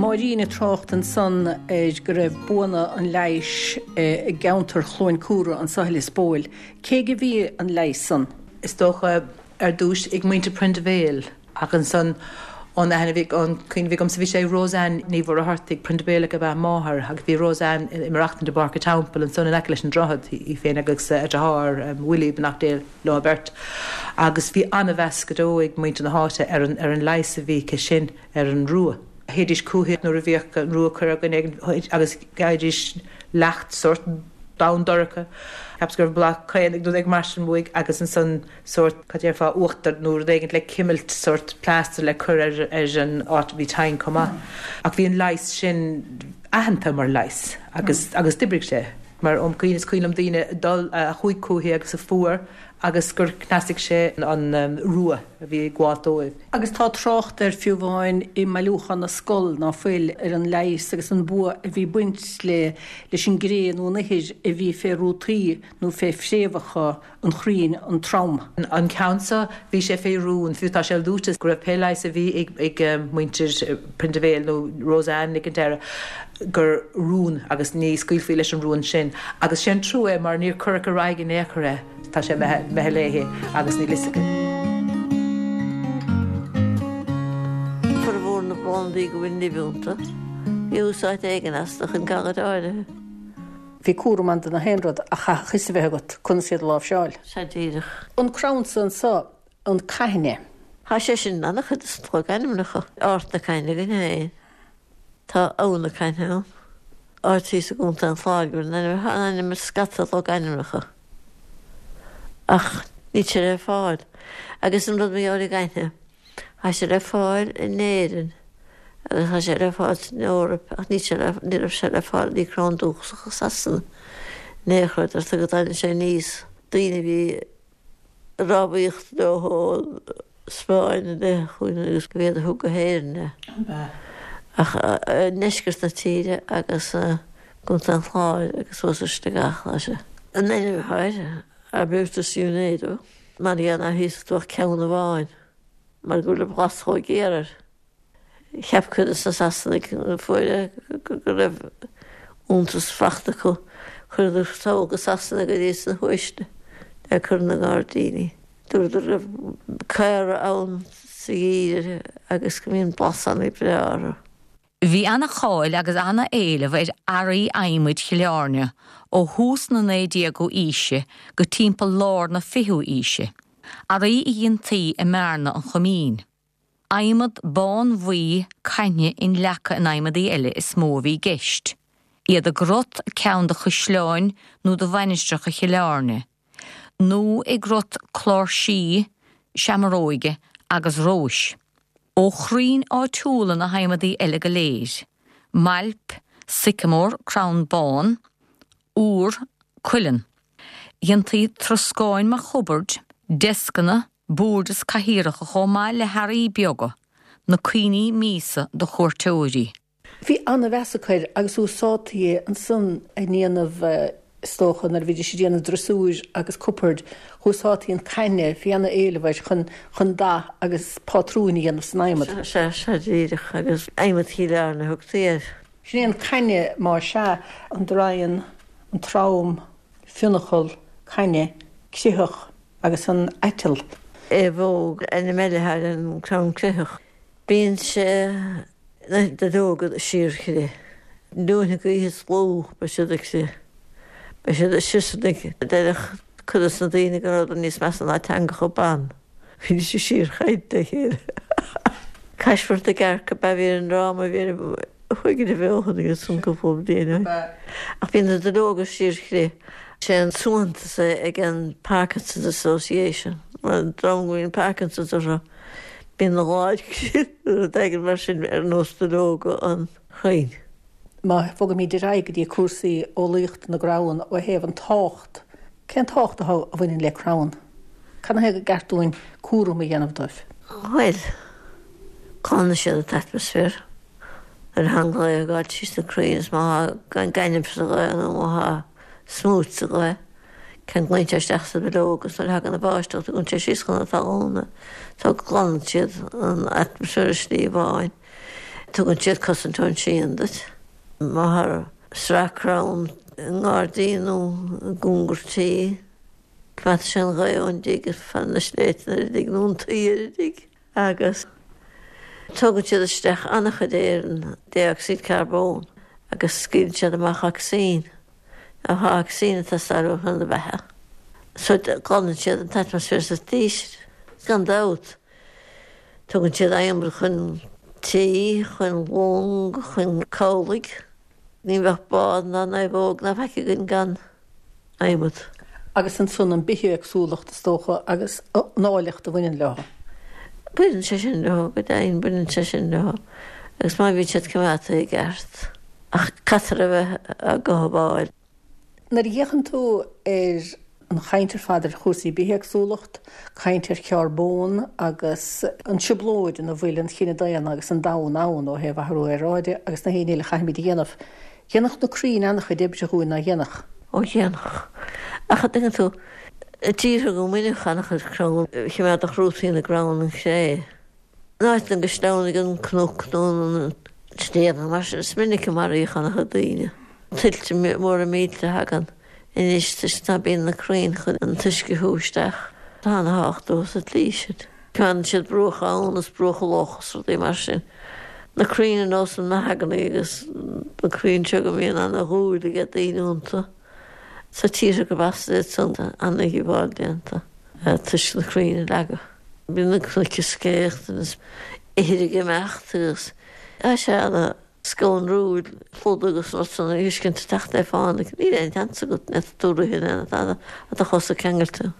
Máirín ag trácht ansan ar go raibh buanna an leighis i gceantar Chluain Cúra anso i Lios Póil. Cé aige a bhí an leigheas san? Is dócha, ar dtúis, ag muintir Prendeville, ach ansan, ón aithne a bhí, ón cuimhne a bhí agamsa, bhí sé ag Rose Ann Ní Mhuircheartaigh, Prendevilleach ab ea a máthair, agus bhí Rose Ann ag maireachtaint i bPáirc an Teampaill ansan in aice leis an droichead, í féin agus a deartháir, Willie, beannacht Dé leo beirt. Agus bhí an-mheas go deo ag muintir na háite ar an, ar an leigheas a bhí aici sin ar an rua. Théidís chúithi nuair a bhíodh an rua ag cur ar dhuine éigin agus gheibhidís leacht sórt donn dorcha, cheapas go raibh bláth caonaigh nó rud éigin mar sin uaidh agus ansan sórt, cad déarfá, uachtar nó rud éigin le cimilt, sórt plaster le cur ar ar an áit a bhí tinn chomh maith. Ach bhí an leigheas sin aitheanta mar leigheas agus agus d'oibrigh sé mar óm cuimhne, is cuimhin liom daoine ag dul, a chuaigh chúithi agus a fuair agus gur chneasaigh sé an rua a bhí ag gabháilt dóibh. Agus tá trácht air fiú amháin i mBailiúchán na Scol, ná fuil, ar an leigheas agus an bua a bhí ag baint le leis an gcré nó an ithir a bhí fé rútaí nó fé phréamhacha an chrainn, an trom. An ceann seo, bhí sé fé rún, fiú tá sé luaite go raibh pé leigheas a bhí ag muintir Prendeville nó Rose Ann Nic an Deireadh, gur rún agus ní scaoilfí leis an rún sin. Agus sé an trua é mar níor cuireadh ar aghaidh in aon chor é. Tá sé imithe léi agus níl fhios aici. Formhór na bplandaí go bhfuil nimh iontu. Bhí úsáid éigin astu chun galair áirithe. Bhí cúram ann do na haon rud ach chaithfeadh fios a bheith agat conas iad a láimhseáil. Sea díreach. An crann so anso, an caithne. Tá sé sin in an-chuid de na logainmneacha. Ard na Caithne againn féin. Tá Abha na Caithne ann. Áit thíos i gContae an Chláir go bhfuil an ainm, tá an ainm i scata logainmneacha. Ach níl sé le fáil. Agus an rud mar gheall ar an gcaithne, tá sé le fáil in Éirinn agus tá sé le fáil san Eoraip ach níl sé le, ní raibh sé le fáil, ní crann dúchasach i Sasana in aon chor, deirtear go dtagann sé aníos, daoine a bhí ag rámhaíocht leo ón Spáinn i leith chugainn agus gurb iad a thug go hÉirinn é. Ach i ndeisceart na tíre agus i gContae an Chláir agus suas ar Sligeach atá sé. An ainm atá air, Arbutus unedo, mar gheall ar thíos go bhfuil ceann amháin mar go bhfuil an blas chomh géar air. Cheap cuid de na Sasanaigh nuair a fuair é go raibh iontas fachta acu. Chuireadar sall go Sasana go dtí sna huaisle le cur ina ngairdíní. Dúradar go raibh caora ann sa gheimhreadh agus go mbíonn blas an-bhreá orthu. Bhí ana-cháil agus ana-éileamh ar earraí adhmaid Chill Airne ó thús na 19ú aoise go timpeall lár na 20ú aoise, earraí a dhéantaí i mBearna an Choimín. Adhmad bánbhuí caithne inleagtha in adhmadaí eile is mó a bhí i gceist, iad i gcrot ceann de chaisleáin nó de mhainistreacha Chill Airne, nó i gcrot cláirsí, seamaróige agus róis. Ó chrainn áitiúla na hadhmadaí eile go léir, mailp, sycamore, crann bán, iúr, cuileann. Dhéantaí troscáin mar chubaird, deascanna, boird is cathaoireacha chomh maith le hearraí beaga, na cuimhní míosa do chuairteoirí. Bhí ana-mheas acu air agus úsáidtí é ansan i ndéanamh, is dócha, nuair a bhídís ag déanamh drosúir agus cupboird, úsáidtí an caithne, bhí ana-éileamh air chun, chun dath agus pátrúin a dhéanamh san adhmad. Sea, sea, díreach, agus adhmad Chill Airne a thugtaí air. Sin é an caithne, má sea, an draighean, an trom, fionnachal, caithne, critheach agus an aiteal. Aomhóg, ainm eile ar an gcrann critheach. Bíonn sé na duilleoga ag síorchrith. Luaithe na gaoithe is lú beidh siad ag crith. Beidh siad ag siosarnaigh. Deireadh cuid dos na daoine go rabhadar níos measa ná teangacha ban. Bhídís ag síorchaint le chéile. Caismirt na gCearc ab ea bhí ar an ndráma a bhí ar Chuig a bheochan agus an cúpla bliain ó shin. Ach bíonn na duilleoga ag síorchrith. Sé an suaitheantas é ag an Parkinson's Association. Mar an dream go mbíonn Parkinson's orthu, bíonn a lámha ag crith nó rud éigin mar sin ar nós duilleoga an chrainn. Má bhogaimid ar aghaidh go dtí cúrsaí eolaíochta na gcrann ó thaobh an tábhacht, cén tábhacht atá a bhaineann le crann? Cad ina thaobh gur ceart dúinn cúram a dhéanamh dóibh? Bhuel, glanann siad an t-atmaisféar. Nuair atá an ghaoth ag gabháil tríd na crainn is má tá gaineamh sa ghaoth nó má tá smúit sa ghaoth, ceanglaíonn sé isteach sa duilleog agus nuair a thagann an bháisteach tugann sé síos chun na talún é. So glanann siad an atmaisféar i slí amháin. Tugann siad cosaint ón ngrian duit. Má tá sraith crann i ngairdín nó i gcóngar tí, coimeádfaidh sé an ghaoth ón dtigh is fan na sléibhte ar an dtigh nó an tuí ar an dtigh. agus tógann siad isteach an-chuid aeir, an dé-ocsaíd carbóin, agus scaoileann siad amach ocsaigin. Now tá ocsaigin ag teastáil uainn chun na beatha. So glanann siad an t-atmaisféar sa tslí sin. Gan dabht, tugann siad adhmad chun tí, chun long, chun cabhlaigh. Ní bheadh bád ná naomhóg ná faic againn gan. adhmad. Agus ansan an bithéagsúlacht, is dócha, agus an áilleacht a bhaineann leo. Baineann sé sin leo, go deimhin, baineann sé sin leo. Agus má bhíonn siad coimeádta i gceart. Ach caithfear a bheith á gcothabháil. Nuair a fhéachann tú ar an chaint ar fad ar chúrsaí bithéagsúlacht, caint ar charbón agus an trioblóid ina bhfuil an chine daonna agus an domhan ann ó thaobh athrú aeráide agus na haon ní eile a chaithfimid a dhéanamh, Dhéanfadh na crainn an-chuid oibre dhúinn, ná dhéanfadh? Ó dhéanfadh. Ach an dtuigeann tú, i dtíortha go mbaineadh an-chuid crann, choimeádfadh rútaí na gcrann an chré. In áiteanna go sleamhnaigh an cnoc nó an sliabh nó mar sin, is minic a maraíodh an-chuid daoine. Tuilte móra millte a thagann anois toisc ná bíonn na crainn chun an t-uisce a shú isteach. Tá ana-thábhacht leo sa tslí sin. Coimeádann siad bruacha abhann is bruacha loch is rudaí mar sin. Na crainn ar nós an mahogany agus na crainn seo go mbíonn ana-dhúil ag daoine iontu. Tá tíortha gurb as iad san tá ana-dhíobháil déanta toisc na crainn a leagadh. Bíonn na cnoic ag scréachtaint is ithir ag imeacht agus tá sé ana scanrúil flood agus rud san a fheiscint ag teacht le fána. Níl aon tseans agat, ní fhéadfaidh tú rith in aon tada ach do chosa ceangailte.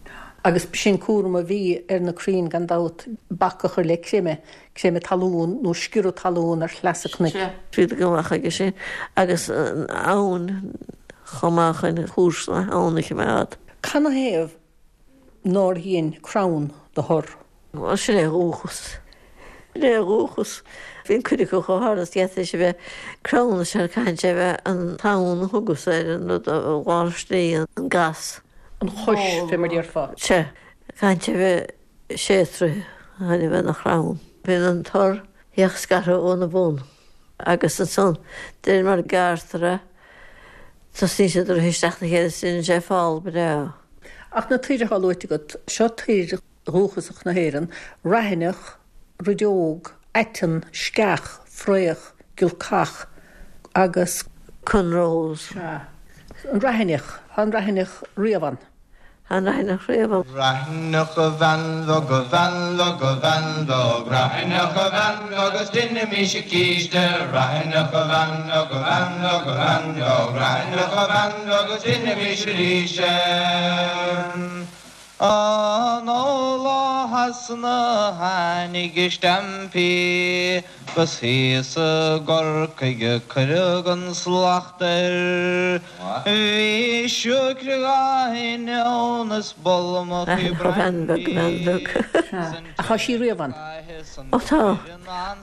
Agus b'shin cúram a bhí ar na crainn gan dabht, bac a chur le creimeadh, creimeadh talún nó sciorradh talún ar shleasa cnoic. Bhíodar go maith chuige sin agus an abhainn chomh maith chun cúrsa na habhann a choimeád. Canathaobh nár dhein crann do thor? Bhuel, sin é a dhúchas. Sin é a dhúchas. Bíonn cuid acu chomh hard is d'fhéadfadh sé a bheith crann is ea caitheann sé a bheith an tonn a thugas air an rud a bháistí an gas. An chois, fé mar déarfá. Sea. Caitheann sé a bheith sé troithe chun a bheith ina chrann. Bíonn an tor bheadh scartha óna bhun agus ansan de réir mar a gearrtar é tosaíonn siad ag rith isteach 'na chéile is déanann sé fál breá. Ach na toir atá luaite agat, seo toir dhúchasach na hÉireann, raithineach, rideog, aiteann, sceach, fraoch, giolcach agus. Corn rose. Sea. An raithineach, tá an raithineach riamh ann. An raithineach riamh ann. Raithineach a bhean bheag, a bhean bheag, a bhean bheag, Raithineach a bhean bheag is deinimís císte, Raithineach a bhean bheag, a bhean bheag, a bhean bheag, Raithineach a bhean bheag is deinimís arís é. An ó Shasana tháinig a stampaí 'gus thíos i gCorcaigh a cuireadh an slacht air. Bhí siúicre dhá inneoin is bolmachaí brandy. Ach tá sí riamh ann. Ó tá.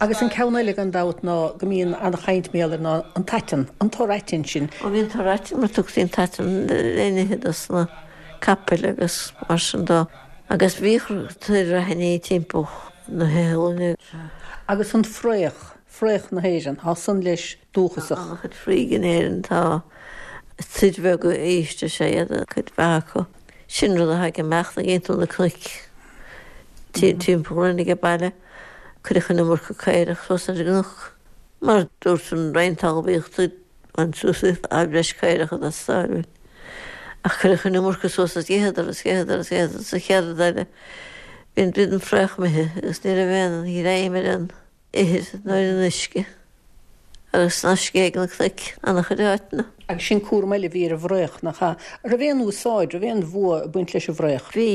Agus an ceann eile gan dabht ná go mbíonn an-chaint mar gheall air ná an t-aiteann, an tor aitinn sin. Ó bhí an tor aitinn mar tugtaí an t-aiteann le n-ithe dos na capaill agus mar sin dó. Agus bhíodh toir raithinní timpeall na hiothlainne. Agus an fraoch, fraoch na hÉireann, tá san leis dúchasach. Tá an-chuid fraoigh in Éirinn, tá toir bheaga ísle is ea iad cuid mhaith acu. Sin rud a thagann amach nuair a gheibheann tú na cnoic timpeall orainn age baile. Cuireadh an iomarca caorach suas ar an gcnoc. Mar dúirt an Roinn Talmhaíochta, Bain suas tá breis caorach ag teastáil uainn. Ach cuireadh an iomarca suas is d'itheadar is d'itheadar is d'itheadar sa chéad rud eile bhí an bhí an fraoch imithe agus ní raibh aon ghreim ar an ithir ná ar an uisce agus ná scéigh na cnoic an-chuid áiteanna. Agus sin cúram eile a bhí ar an bhfraoch, nach ea? An raibh aon úsáid, raibh aon bhua ag baint leis an bhfraoch? Bhí,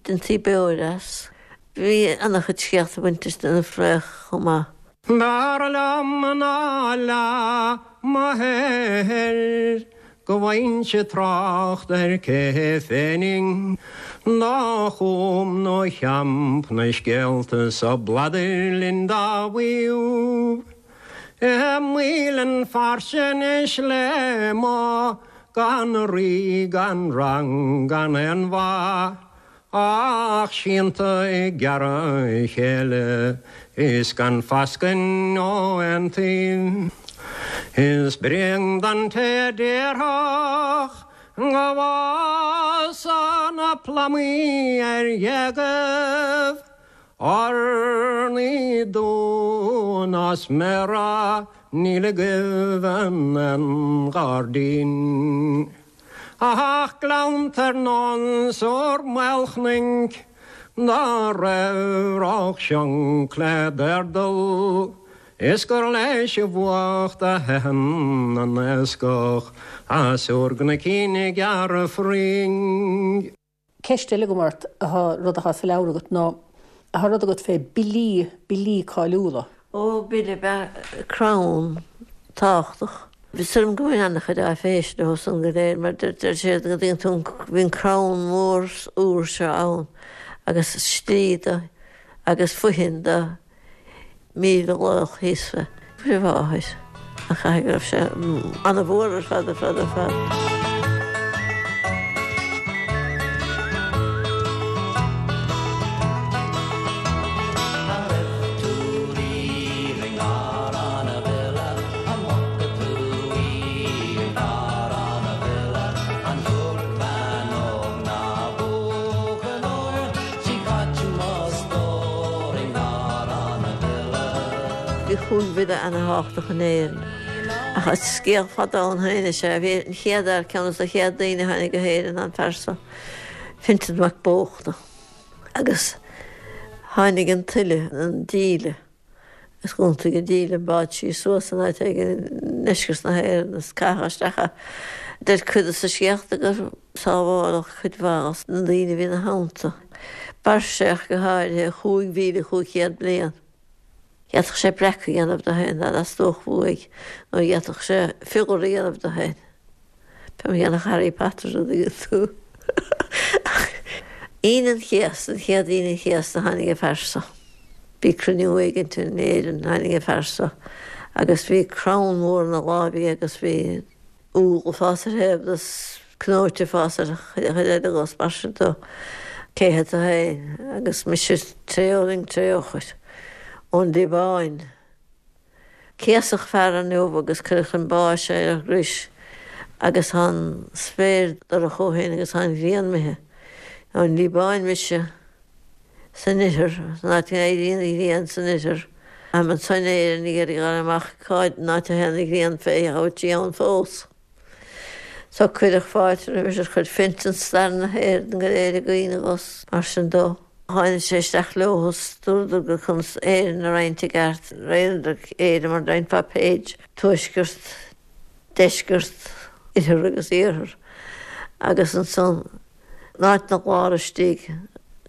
deintí beoir as. Bhí an-chuid scéalta ag baint leis an bhfraoch chomh maith. B'fhearr liom ná leath mo shaothair go bhfaighinnse trácht ar cé phenning do chum nó champ na scéalta so bladair linn dá mhaíomh. I Maoilinn Fairche anois le mo gan rí gan rang gan aon mhaith Ach sínte ag gearradh a chéile is gan fascain ó aon taobh. Is bréan don té a déarfadh go bhfásadh na plamaí ar ghéagaibh Urnaí dúinn as méara níl i gcuimhne an ghairdín. Ach gleannta ar nós ár Maolchnoic dá raibh Ráth Sionc le dAirdal is gur leis an bhfuacht a theitheann an iascach as ár gcnoicín ag gearradh fraoigh. Ceist eile agam ort, atá, rud atá sa leabhar agat ná, tá rud agat fé billí, billí cáiliúla. Ó, bille ab ea crann tábhachtach. Is dóigh liom go bhfuil an-chuid áiféise leo san go léir mar deir siad go dtuigeann tú bhí an crann mór úr seo ann agus slí do agus fothain do 1,000 laoch thíos fé. Fuair a mháthair. Ach caithfidh go raibh sé an-mhór ar fad, ar fad, ar fad. An raibh tú riamh i nGarrán a' Bhile? An bhfaca tú í i nGarrán a' Bhile? An bhfuair bean óg ná buachaill óir? 'S í caite mo stór i nGarrán a' Bhile. Bhí chúig bhile ana-thábhachtach in Éirinn. Ach is scéal fada ann féin is ea. Bhí an chéad fhear, ceann dos na chéad daoine a tháinig go hÉirinn ná an fear so, Fintan Mac Bóchna. Agus tháinig an tuile, an díle, agus dh'iontaigh an díle an bád síos suas in áit éigin i ndeisceart na hÉireann agus caitheadh isteach é. Deir cuid dos na scéalta gur sábháladh cuid mhaith dos na daoine a bhí ina theannta. B'fhear é go háirithe, 5,500 bliain. D'fhéadfadh sé breac a dhéanamh de féin dá dteastódh uaidh, nó d'fhéadfadh sé fioghual a dhéanamh de féin. Fé mar a dhéanfadh Harry Potter an dtuigeann tú. Aoine an Chéasta, an chéad Aoine an Chéasta tháinig an fear so. Bhí cruinniú éigint in Éirinn, tháinig an fear so agus bhí crann mór ina láimh aige agus bhí úll ag fás ar thaobh de 's cnóite ag fás ar chuid eile de 's mar sin de. Cé hé tú féin? Agus mise Tré Fhulaing Tré Eochair ón Liobáin. Céasadh fear inniu agus cuireadh chun báis é ar an gcrois agus tá an spéir dorcha ó shin agus tá an ghrian imithe. Ón Liobáin mise. san oirthear, san áit a n-éiríonn an ghrian san oirthear. Táim anso in Éirinn ag iarraidh a fháil amach cá áit a théann an ghrian fé an bhfuil sí ann fós. So cuireadh fáilte roimis ar chuir Fintan stair na hÉireann go léir i gcuimhne dhó 's mar sin dó. Tháinig sé isteach leo is dúradar gur conas Éirinn a roinnt i gceart, roinneadar Éire mar a roinnfeá page, tuaisceart, deisceart, oirthear agus iarthar agus ansan In áit na lár istigh,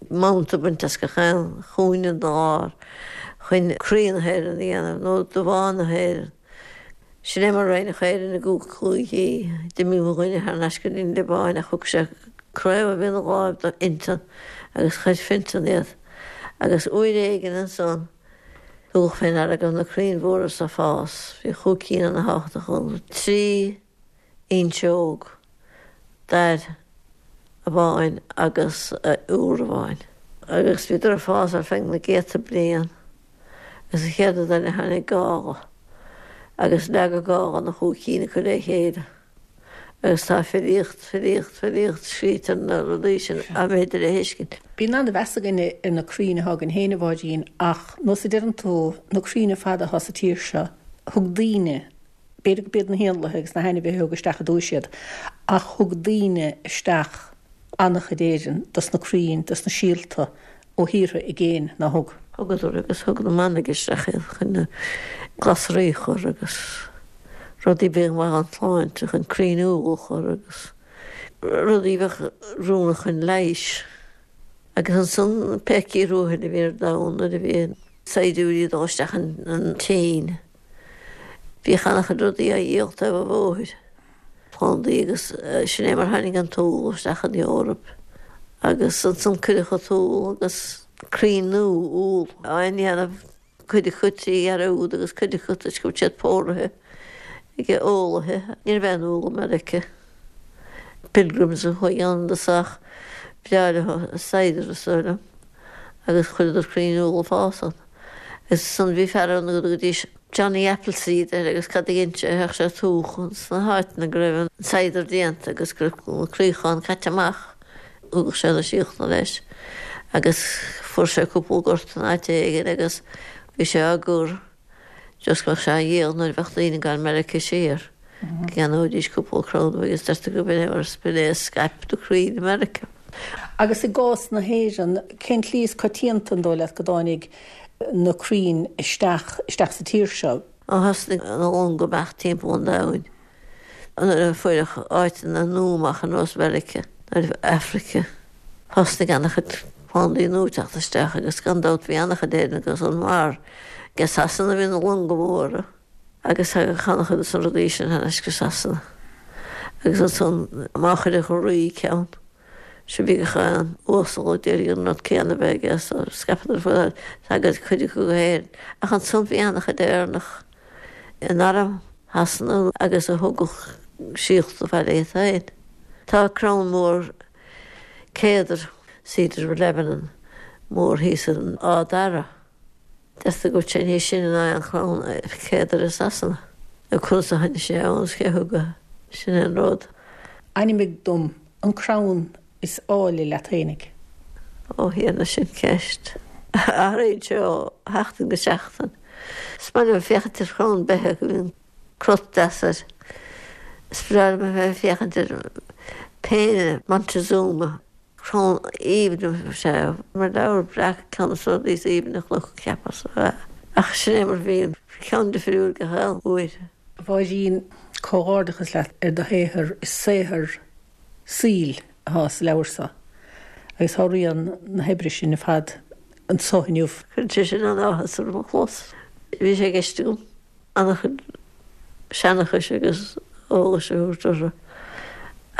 manta bainte as gach aon chúinne den lár chun croí na hÉireann a dhéanamh, nó damhán na hÉireann. Sin é mar a roinneadh Éirinn i gcúig chúigí. D'imigh mo dhuine thar n-ais go dtí an Liobáin ach thug sé craobh a bhí ina láimh do Fhintan agus chuir Fintan iad. Agus uair éigin ansan, tugadh fé ndeara go raibh na crainn mhóra so ag fás. Bhí chúig cinn ana-thábhachtach ann. 3. fhuinseog, dair amháin agus iúr amháin. Agus bhíodar ag fás ar feadh na gcéadta bliain agus an chéad rud eile tháinig gála agus leag an gála na chúig cinn acu le chéile. Agus tá filíocht, filíocht, filíocht scríte ar na rudaí sin dá mb'fhéidir a thuiscint. Bíonn an-mheas againne ar na crainn atá againn féin, a Mháirín, ach nós a deireann tú, na crainn ar fad atá sa tír seo, thug daoine, B'fhéidir go b'iad na héanlaithe agus na hainmhithe a thug isteach i dtúis iad, ach thug daoine isteach an-chuid Éireann dos na crainn, dos na síolta ó thíortha i gcéin, nár thug? Thugadar agus thug na manaigh isteach iad chun na glasraí a chur agus rudaí a bhíodh maith don tsláinte, chun crainn úll a chur agus rudaí a bheadh oiriúnach chun leighis. Agus ansan pé ciorrú a bhí ar domhan nuair a bhí saighdiúirí ag dul isteach an tSín. Bhíodh an-chuid rudaí á dhíol taobh an bhóthair, plandaí agus sin é mar tháinig an t-úll isteach an Eoraip. Agus ansan cuireadh an t-úll agus crainn nua úll á ndéanamh, cuid acu trí dhearúd agus cuid acu toisc go raibh siad póraithe ag eolaithe. Ní raibh aon úll i Meiriceá. Pilgrims a chuaigh ann i dtosach, b'bhreá leo cider is dóigh liom. agus chuireadar crainn úll ag fás ann. Agus ansan bhí fear ann go dtugaidís Johnny Appleseed air agus cad a dhein sé, théadh sé ag tóch sna háiteanna go raibh an cider déanta agus go raibh na craocháin caite amach, thugadh sé na síolta leis agus fuair sé cúpla gort in áit éigin agus bhí sé á gcur. Just go mbeadh sé á dhíol nuair a bheadh daoine ag gabháil Meiriceá siar, go gceannóidís cúpla crann agus deirtear gurb in é mar b'in é a scaip na crainn i Meiriceá. Agus i gcás na hÉireann, cén tslí is coitianta, an dóigh leat, go dtáinig na crainn isteach isteach sa tír seo? Ó thosnaigh na longa amach timpeall an domhain. Nuair a fuaireadh áiteanna nua amach ar nós Mheiriceá nó Afraice, thosnaigh an-chuid plandaí nua ag teacht isteach agus gan dabht bhí an-chuid Éireannach ansan mar ag Sasana a bhí na longa móra agus thagadh an-chuid de na rudaí sin thar n-ais go Sasana. Agus ansan má chuireadh an rí ceann, sea bhí gach aon uasal ag iarraidh an rud céanna a bheith aige so scaipeadar fud thagadh cuid acu go hÉirinn. Ach ansan bhí an-chuid Éireannach in arm Shasana agus a thugadh síolta abhaile iad féin. Tá crann mór céadair, Cedar of Lebanon, mór thíos in Áth Dara. Deirtear go bhfuil sé níos sine ná aon chrann céadair i Sasana. Nó conas a tháinig sé ann is cé a thug é, sin é an rud. Ainmnigh dom an crann is áille leat fhéinig. Ó Thiarna, sin ceist. Athraíonn sé ó sheachtain go seachtain. Is maith liom féachaint ar chrann beithe go mbíonn crot deas air. Is breá liom a bheith ag féachaint ar péine Montezuma, crann aoibhinn is ea é. Mar leabhar breac ceann de na rudaí is aoibhne a chonac, cheapas. Ach sin é mar a bhíonn, ceann difriúil gach aon uair. A Mháirín, comhghairdeachas leat ar do shaothar, is saothar saoil atá sa leabhar seo agus tá rian na hoibre sin ar fad anso inniu. Cuireann sé sin an-áthas orm a chlos. Bhí sé i gceist agam an-chuid seanchais agus eolais a thabhairt orthu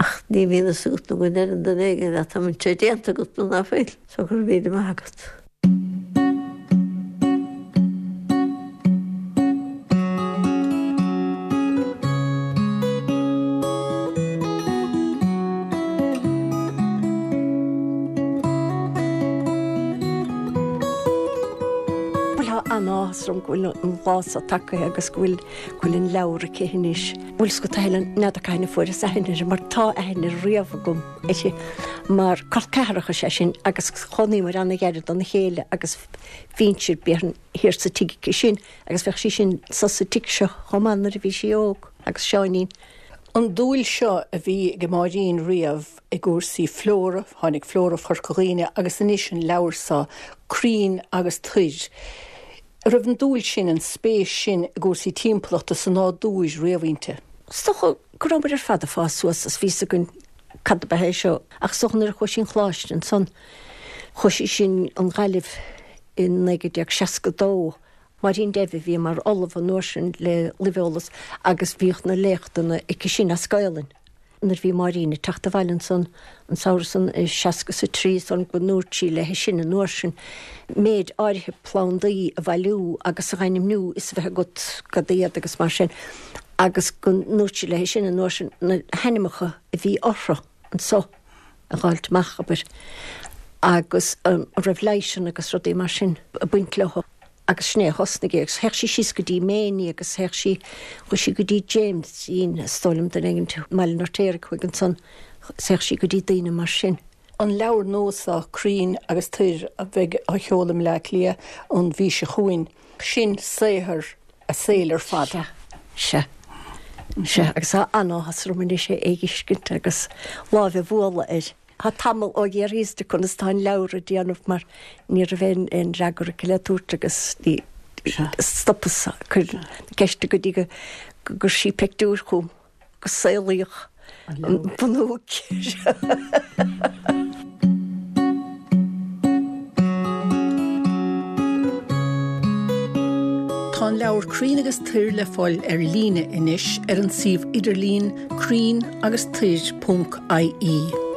ach ní bhíonn fhios agat nó go ndeireann duine éigin leat an bhfuil sé déanta agat nó ná fuil, so go raibh míle maith agat. Bhuel tá an-áthas orm go bhfuil an lá seo tagtha agus go bhfuil go bhfuil an leabhar aici anois. Bhfuil 's agat a Helen, n'fheadar cathain a fuaireas aithne uirthi mar tá aithne riamh agam uirthi mar col ceathracha is ea sinn agus chónaíomar an-ghairid dona chéile agus bhínnse b'fhéidir thiar sa tigh aici sin agus bheadh sí sin sa sa tigh seo chomh maith nuair a bhí sí óg agus Seáinín. An dúil seo a bhí ag Máirín riamh i gcúrsaí flóra, tháinig Flóra Chorca Dhuibhne agus anois an leabhar seo, Crainn agus Toir. An raibh an dúil sin, an spéis sin i gcúrsaí timpeallachta sa nádúr riamh inti? Is dócha go rabhamar ar fad ag fás suas is bhí 's againn cad ab ea é seo ach is dócha nuair a chuaigh sí 'on choláiste ansan, chuaigh sí sin 'on Ghaillimh i 1962, Máirín Devitt a bhí mar ollamh an uair sin le luibheolas agus bhíodh na léachtanna aici sin as Gaolainn. Nuair a bhí Máirín ag teacht abhaile ansan an samhradh san i 63 is dóigh liom go ndúirt sí léi sin an uair sin méid áirithe plandaí a bhailiú agus a dh'ainmniú is a bheith agat cad iad agus mar sin agus go ndúirt sí léi sin an uair sin na hainmneacha a bhí orthu anso a dh'fháilt amach, abair, agus an raibh leighiseanna agus rudaí mar sin ag baint leo. Agus sin é a thosnaigh é agus théadh sí síos go dtí Méiní agus théadh sí, chuaigh sí go dtí James-ín, is dóigh liom, duine éigin i mBaile an Fheirtéaraigh, chuaigh ansan, théadh sí go dtí daoine mar sin. An leabhar nua seo, Crainn agus Toir, a bheidh á sheoladh i mBleá Cliath an mhí seo chugainn, sin saothar a saoil ar fad. Sea, sea, sea, agus tá an-áthas orm anois é a fheiscint agus lámh a bhualadh air. Tá tamall ó dh'fhiafraíos di conas tá an leabhar ag déanamh mar ní raibh aon aon fhreagra aici le tabhairt agus ní stopas ag cur na ceiste go dtí go gcuir sí peictiúr chugam go saolaíodh an bunóc. Tá an leabhar Crainn agus Toir le fáil ar líne anois ar an suíomh idirlín crainn agus toir ponc ie.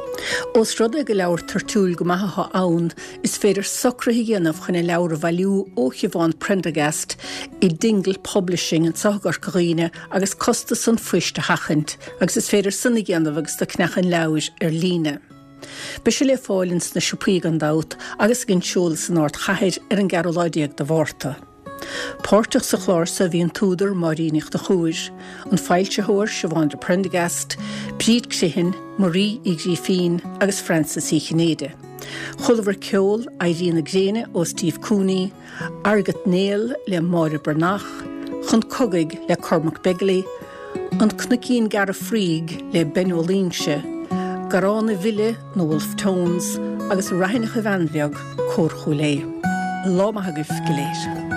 Ós rud é gur leabhar toirtiúil go maith atá ann, is féidir socruithe a dhéanamh chun an leabhar a bhailiú ó Shiobhán Prendergast i Dingle Publishing anseo i gCorca Dhuibhne agus costas an phoist a sheachaint, agus is féidir san a dhéanamh agus tú ag ceannach an leabhair ar líne. Beidh sé le fáil ins na siopaí gan dabht agus ag an seoladh san ardchathair ar an gceathrú lá déag de Mhárta. Páirteach sa chlár so bhí an t-údar Máirín Ní Chonchúir, an foilsitheoir Siobhán de Prendergast, Bríd Criomhthain, Marie Uí Ghrífín agus Frances Uí Chinnéide. Chualamar ceol Éirí na Gréine ó Steve Cooney, Argat Néill le Máire Breathnach, Chun Cogaidh le Cormac Begley, An Cnoicín Gearr Fraoigh le Ben Ó Loingsigh, Garrán a' Bhile, Na Wolfe Tones, agus Raithineach a Bhean Bheag, Cór Chúil Aodha. Lá maith agaibh go léir.